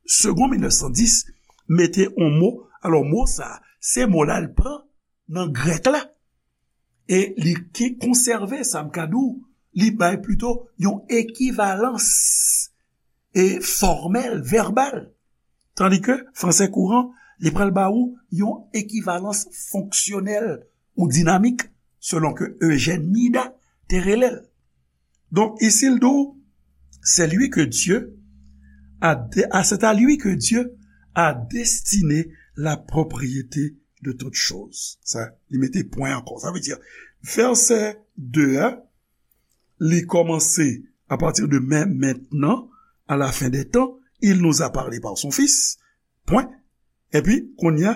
Segond mil nèf san dis mete yon mo, alò, mo sa, se mo la l pran nan grèk la, e li ki konsève, sa m ka di w, li bay plito yon ekivalans e fòmèl, vèbal. Tandi ke fransè kouran, li pral ba ou yon ekivalans fonksyonèl ou dinamik, selon ke Eugène Mida te rele l. Donk, isi l di w, c'est lui que Dieu a dé-, ah, c'est à lui que Dieu a destiné la propriété de toutes choses. Sa, li mete pwen ankò. Sa vle di, vèsè de a, li kòmanse à partir de mais maintenant, à la fin des temps, il nous a parlé par son Fils. Pwen. Epi, kounye a,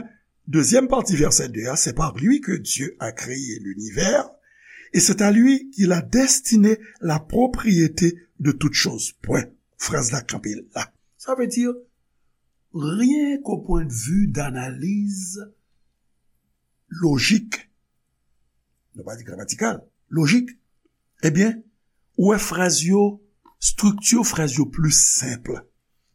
dezyèm pati vèsè de a, c'est par lui que Dieu a créé l'univers, et c'est à lui qu'il a destiné la propriété de toutes choses. Pwen. Fraz la kanpe la. Sa vle di, rien qu'au point de vue d'analyse logique, nou pa di gramatikal, lojik, ebyen, ou wè fraz yo, estrikti fraz yo plis senp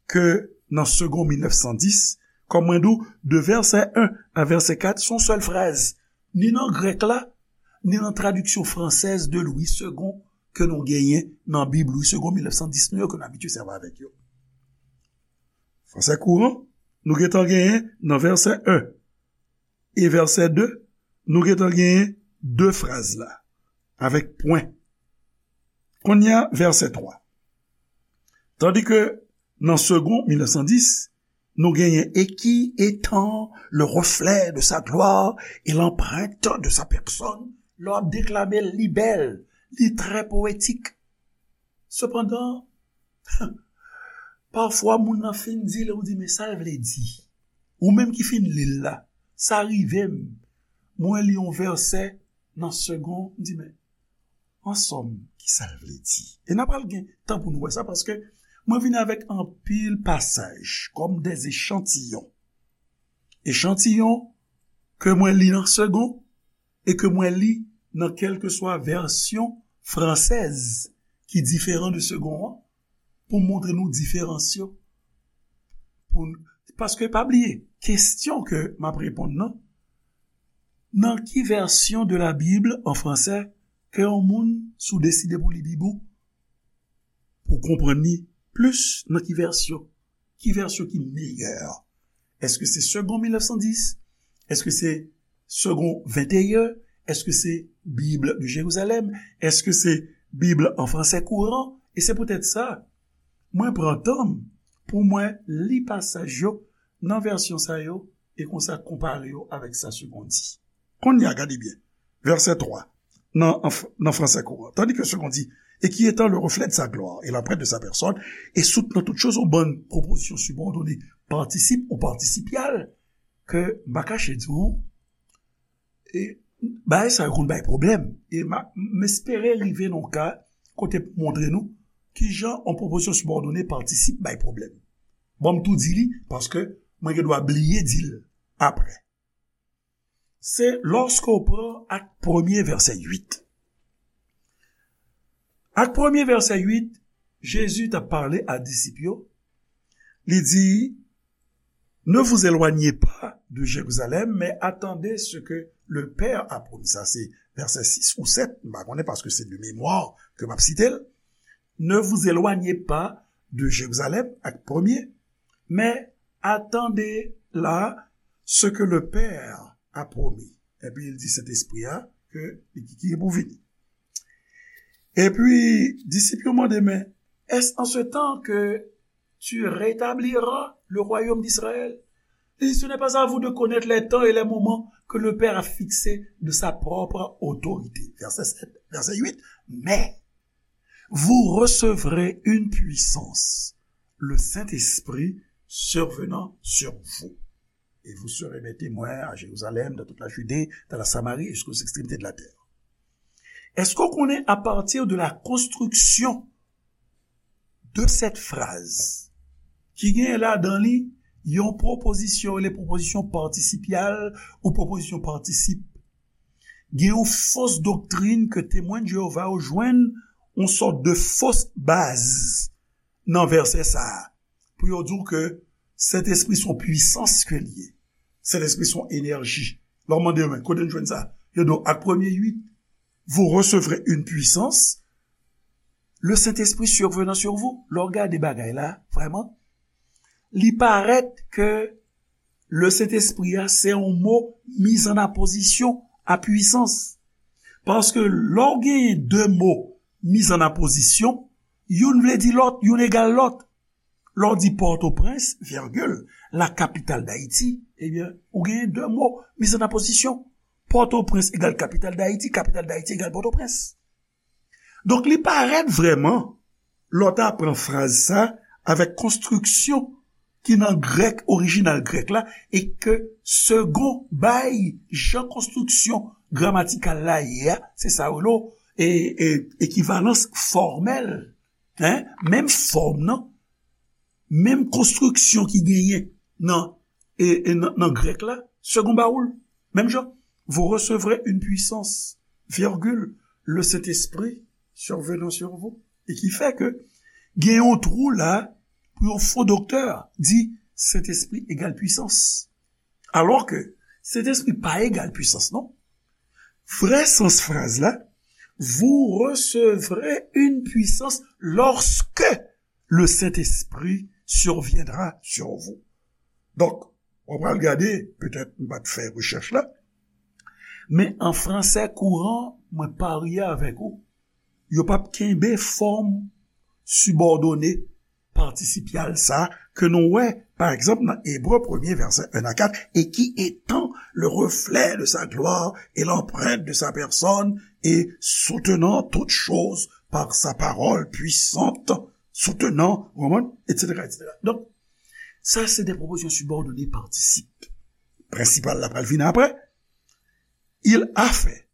ke nan Segond mil nèf san dis, kòm mwen di w, de vèsè en a vèsè kat, se yon sèl fraz. Ni nan grèk la, ni nan tradiksyon fransèz de Louis Segond ke nou genyen nan Bib Louis Segond mil nèf san dis nou yo, ke nou abitye sèvi avèk yo. Fransè kouran, nou gentan genyen nan vèsè en e vèsè de, nou gentan genyen de fraz la, avèk pwen. Kounye a, vèsè twa. Tandis que nan Segond mil nèf san dis, nou genyen et qui étant le reflet de sa gloire et l'empreinte de sa personne, lè w ap deklame l, li bèl, li trè powetik. Sepandan, pafwa moun nan fin di l, ou di, men sa l vle di. Ou menm ki fin li l la, sa rive m. Mwen li yon vèsè nan Segond, m di, men, an sòm, ki sa l vle di? E n a pral gen tan pou nou wè sa, paske mwen vin avèk anpil pasaj, kòm des échantillons. Echantiyon ke mwen li nan Segond, e ke mwen li nan kèlkeswa vèsyon fransèz ki diferan de Segond an, pou montre nou diferans yo. Pou n-, paske pa bliye, kesyon ke m ap reponn nan, nan ki vèsyon de la Bible en français ke yon moun, si w deside pou li Bib ou, pou w konprann li plis nan ki vèsyon? Ki vèsyon ki meyè? Èske se Segond mil nèf san dis? Èske se Segond venteyen? Èske se Bible de Jérusalem? Èske se Bible en français courant? E se poutèt sa, mwen pran tan m pou mwen li pasaj yo nan vèsyon sa yo e konsa konpare yo avèk sa Segond di. Kounye a, gade byen. Vèsè twa, nan, an f-, nan fransè kouran. Tandis que Segond di, et qui étant le reflet de sa gloire et l'empreinte de sa personne, et soutenant toutes choses, yon bann pwopozisyon sibòdone, patisip ou patisipyal, ke m pa kache di w, e bagay sa yo konn bay pwoblèm. E m a, m espere rive nan yon ka kote m montre nou kijan yon pwopozisyon sibòdone, patisip bay pwoblèm. Bon, m tou di li, paske mwen gen dwa bliye di l apre. Se lòske w pran Ak premye, vèsè uit. Ak premye, vèsè uit, Jezi t ap pale a disip yo. Li di, ne vous éloignez pas de Jérusalem, mais attendez ce que le Père a promis. Sa se vèsè sis ou sèt, m pa konnen paske se de memwa ke m ap site l. Ne vous éloignez pas de Jérusalem, Ak premye, mais attendez là ce que le Père a promis. Epi l di Sentespri a ke li ki, ki pou vini. Epi disip yo mande, mais est-ce en ce temps que tu rétabliras le royaume d'Israël? Li di, ce n'est pas à vous de connaître les temps et les moments que le Père a fixés de sa propre autorité. Vèsè sèt, vèsè uit. Mais vous recevrez une puissance, le Saint-Esprit survenant sur vous. Et vous serez mes témoins à Jérusalem, dans toute la Judée, dans la Samarie et jusqu'aux extrémités de la terre. Èske w konnen, à partir de la construction de cette phrase, ki gen ladan li yon pwopozisyon, le pwopozisyon patisipyal ou pwopozisyon patisip, gen yon fos doktrin ke Temwen de Jewova yo jwenn yon sòt de fos baz nan vèsè sa a, pou yo di w ke Sentespri se yon pwisans ke l ye. Sentespri se yon enèji. Lè w mande yo, men kote n jwenn sa? Yo di w, Ak premye uit, vous recevrez une puissance, le Saint-Esprit survenant sur vous. Lè w gade bagay la, vrèman, li parèt ke le Sentespri a, se yon mo mise en apposition à puissance. Paske lè w genyen de mo mise en apposition, youn vle di lòt, youn egal lòt. Lè w di Pòtoprens, virgule, la capitale d'Haïti, ebyen, ou genyen de mo, mise en opposition. Pòtoprens egal kapital Dayiti, kapital Dayiti egal Pòtoprens. Donk, li parèt vrèman, lè w ta pran fraz sa avèk konstriksyon ki nan grèk, orijinal grèk la, e ke Segond bay jan konstriksyon gramatikal la ye a, se sa yo rele e, e, ekivalans fòmèl, hein? Menm fòm nan, menm konstriksyon ki genyen nan, e, e nan, nan grèk la, Segond ba ou l, menm jan. Vous recevrez une puissance, virgule, le Saint-Esprit survenant sur vous. E ki fè ke gen yon twou la pou yon fo doktè di Sentespri egal pwisans. Alò ke Sentespri pa egal pwisans, non. Vrè sans fraz la, vous recevrez une puissance lorsque le Saint-Esprit surviendra sur vous. Donk, w pral gade, petèt m pa t fè rechèch la, men an fransè kouran, mwen parye avèk ou, yo p ap kenbe fòm sibòdone patisipyal sa ke nou wè, pa egzanp, nan Ebre premye, vèsè en a kat, et qui étend le reflet de sa gloire et l'empreinte de sa personne et soutenant toutes choses par sa parole puissante, soutenant, w konprann, et cetera, et cetera. Donk, sa se de pwopozisyon sibòdone patisip. Prensipal la pral vin apre. Il a fait,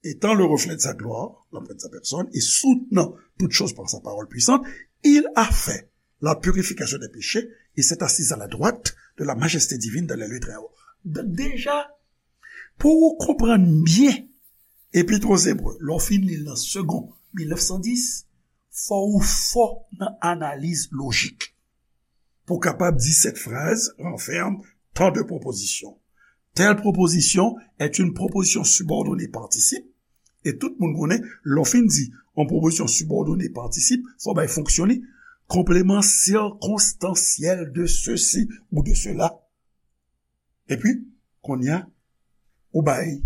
étant le reflet de sa gloire, l'empreinte de sa personne, et soutenant toutes choses par sa parole puissante, il a fait la purification des péchés et s'est assis à la droite de la majesté divine dans les lieux très hauts. Donk, deja, pou ou konprann byen Epit aux Hébreux, lè w fin li l nan Segond mil nèf san dis, fò ou fò nan analiz lojik pou w kapab di cette phrase renferme tant de propositions. Telle proposition est une proposition subordonnée participe, e tout moun konnen, lè w fin di yon pwopozisyon sibòdone patisip, fò w bay fonksyon li, complément circonstanciel de ceci ou de cela. Epi, kounye a, ou bay,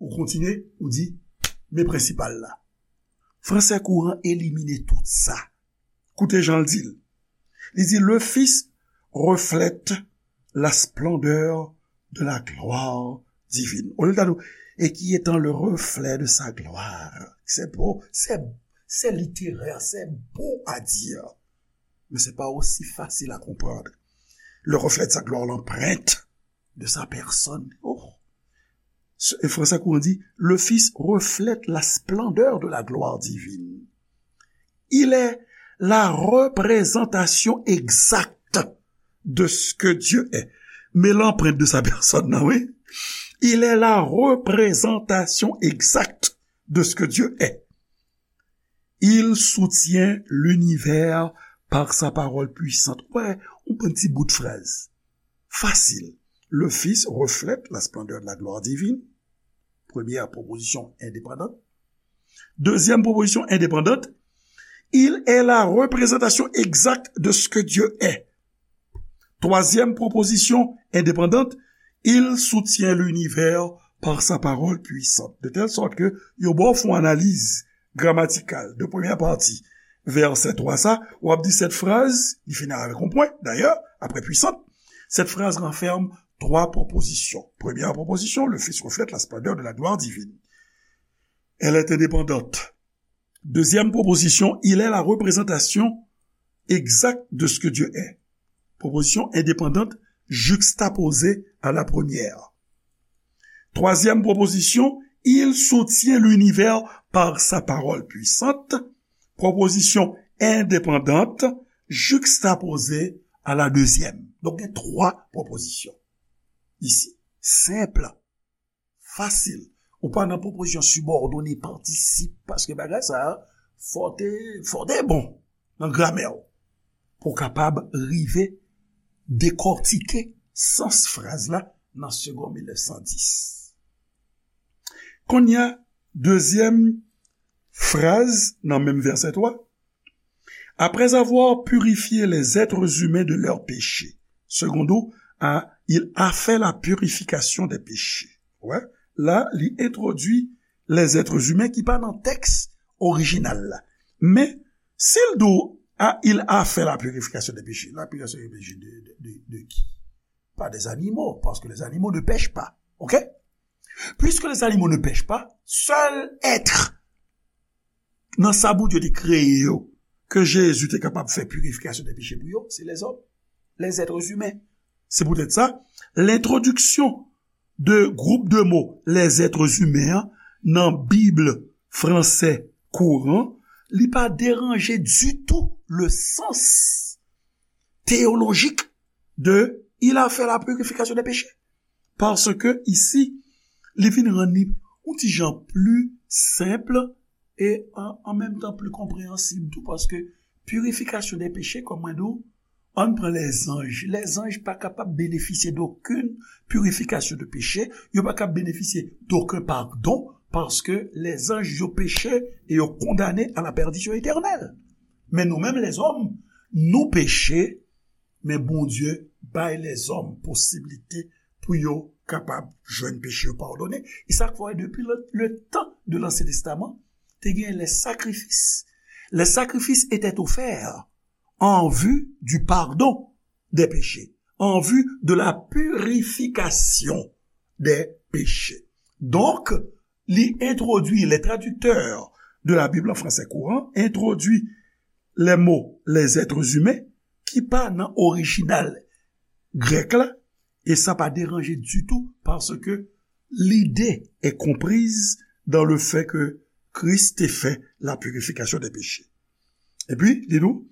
ou kontinye, ou di, men prensipal la. Fransè kouran elimine tout sa. Koute jan l di l. Li di, le Fils reflète la splendeur de la gloire divine. Olye l ta di w, et qui étend le reflet de sa gloire. C'est beau, c'est, c'est littéraire, c'est beau à dire. Mais c'est pas aussi facile à comprendre. Le reflet de sa gloire, l'empreinte de sa personne. Oh. Ce, et François Courant dit, le Fils reflète la splendeur de la gloire divine. Il est la représentation exacte de ce que Dieu est. Men l'empreinte de sa personne, non, oui. Il est la représentation exacte de ce que Dieu est. Il soutient l'univers par sa parole puissante. Wè, yon bon ti bout fraz. Fasil. Le Fils reflète la splendeur de la gloire divine. Première proposition indépendante. Deuxième proposition indépendante, il est la représentation exacte de ce que Dieu est. Troisième proposition indépendante, il soutient l'univers par sa parole puissante. De telle sorte que, yo ba w fè yon analiz gramatikal de premyè pati vèsè twa sa, w ap di cette phrase, li fini avèk yon pwen, d'ailleurs, après puissante, cette phrase renferme trois propositions. Première proposition, le Fils reflète la splendeur de la gloire divine. Elle est indépendante. Deuxième proposition, il est la représentation exacte de ce que Dieu est. Proposition indépendante juxtaposée à la première. Troisième proposition, il soutient l'univers par sa parole puissante. Proposition indépendante juxtaposée à la deuxième. Donk, gen twa pwopozisyon isi. Senp. Fasil. Ou pa nan pwopozisyon sibòdone patisip, paske bagay sa a, fò te, fò te bon nan gramè w pou w kapab rive dekòtike sans fraz la nan Segond mil nèf san dis. Kounye a, dezyèm fraz nan menm vèsè twa, Après avoir purifié les êtres humains de leurs péchés. Secondo a, il a fait la purification des péchés. Wè, la, li entwodui les êtres humains ki pa nan tèks orijinal la. Men, si l di w Ah, il a fait la purification des péchés. La purification des péchés de, de, de, de qui? Pas des animaux, parce que les animaux ne pêchent pas. OK? Puisque les animaux ne pêchent pas, sèl èt nan sa Bondye te kreye yo, ke Jezi te kapab fè purification des péchés pou yo, se lèzòm, les êtres humains. Se poutèt sa, lentwodiksyon de gwoup de mo les êtres humains an nan Bib fransè kouran, li pa deranje ditou le sans théologique de il a fait la purification des péchés. Paske isi, li vin rann li yon ti jan pli senp e an, an menm tan pli konpreyansib tou, paske purification des péchés, kòm mwen di w, ann pran lèzanj. Lèzanj pa kapab benefisye d'aucune purification de péché, yo pa kapab benefisye d'aucun pardon, paske lèzanj yo peche e yo kondane à la perdition éternelle. Men nou menm lèzòm, nou peche, men Bondye bay lèzòm posiblite pou yo kapab jwenn peche yo padone. E sa k fè depi le, le tan de l'Ancien Testament, te gen les sacrifices. Les sacrifices étaient offerts en vue du pardon des péchés, en vue de la purification des péchés. Donk, li entwodui, les traducteurs de la Bible en français courant introduit les mots les êtres humains ki pa nan orijinal grèk la, e sa pa deranje ditou paske l'idée est comprise dans le fait que Christ te fait la purification des péchés. Epi, li di nou,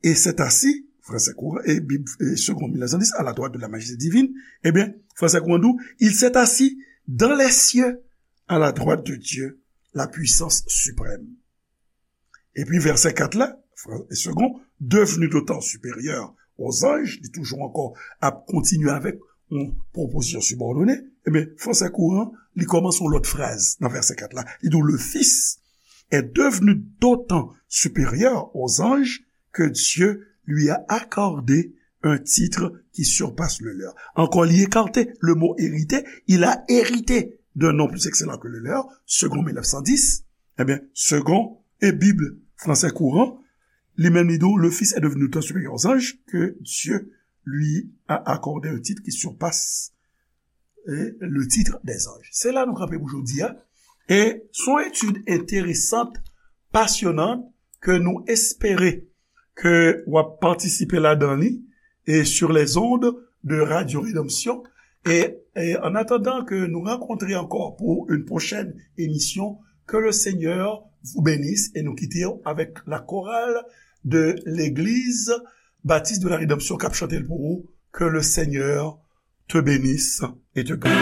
et s'est assis, français courant, et Bible, et Seconde mille neuf cent dix, à la droite de la majesté divine, eh bien, français courant dit, il s'est assis dans les cieux, à la droite de Dieu, la puissance suprême. Epi vèsè kat la, Fran-, Segond, devenu d'autant supérieur aux anges, li toujou ankò ap kontinye avèk yon pwopozisyon sibòdone, ebyen, fransè kouran, li kòmanse yon lòt fraz nan vèsè kat la. Li di, le Fils est devenu d'autant supérieur aux anges que Dieu lui a accordé un titre qui surpasse le leur. Encore, il écarte le mot hérité, il a hérité d'un nom plus excellent que le leur, Segond mille neuf cent dix, eh bien, Segond et Bible français courant, li menm li di, le Fils est devenu tant supérieur aux anges que Dieu lui a accordé un titre qui surpasse eh, le titre des anges. Se la nou kanpe pou jodi a. E se yon etid enteresan, pasyonant, ke nou espere ke w ap patisipe ladan li, et sur les ondes de Radio Rédemption. Et, et en attendant que nous rencontrions encore pour une prochaine émission, que le Seigneur vous bénisse et nous quittons avec la chorale de l'église Baptiste de la Rédemption k ap chante l pou ou, que le Seigneur te bénisse et te garde.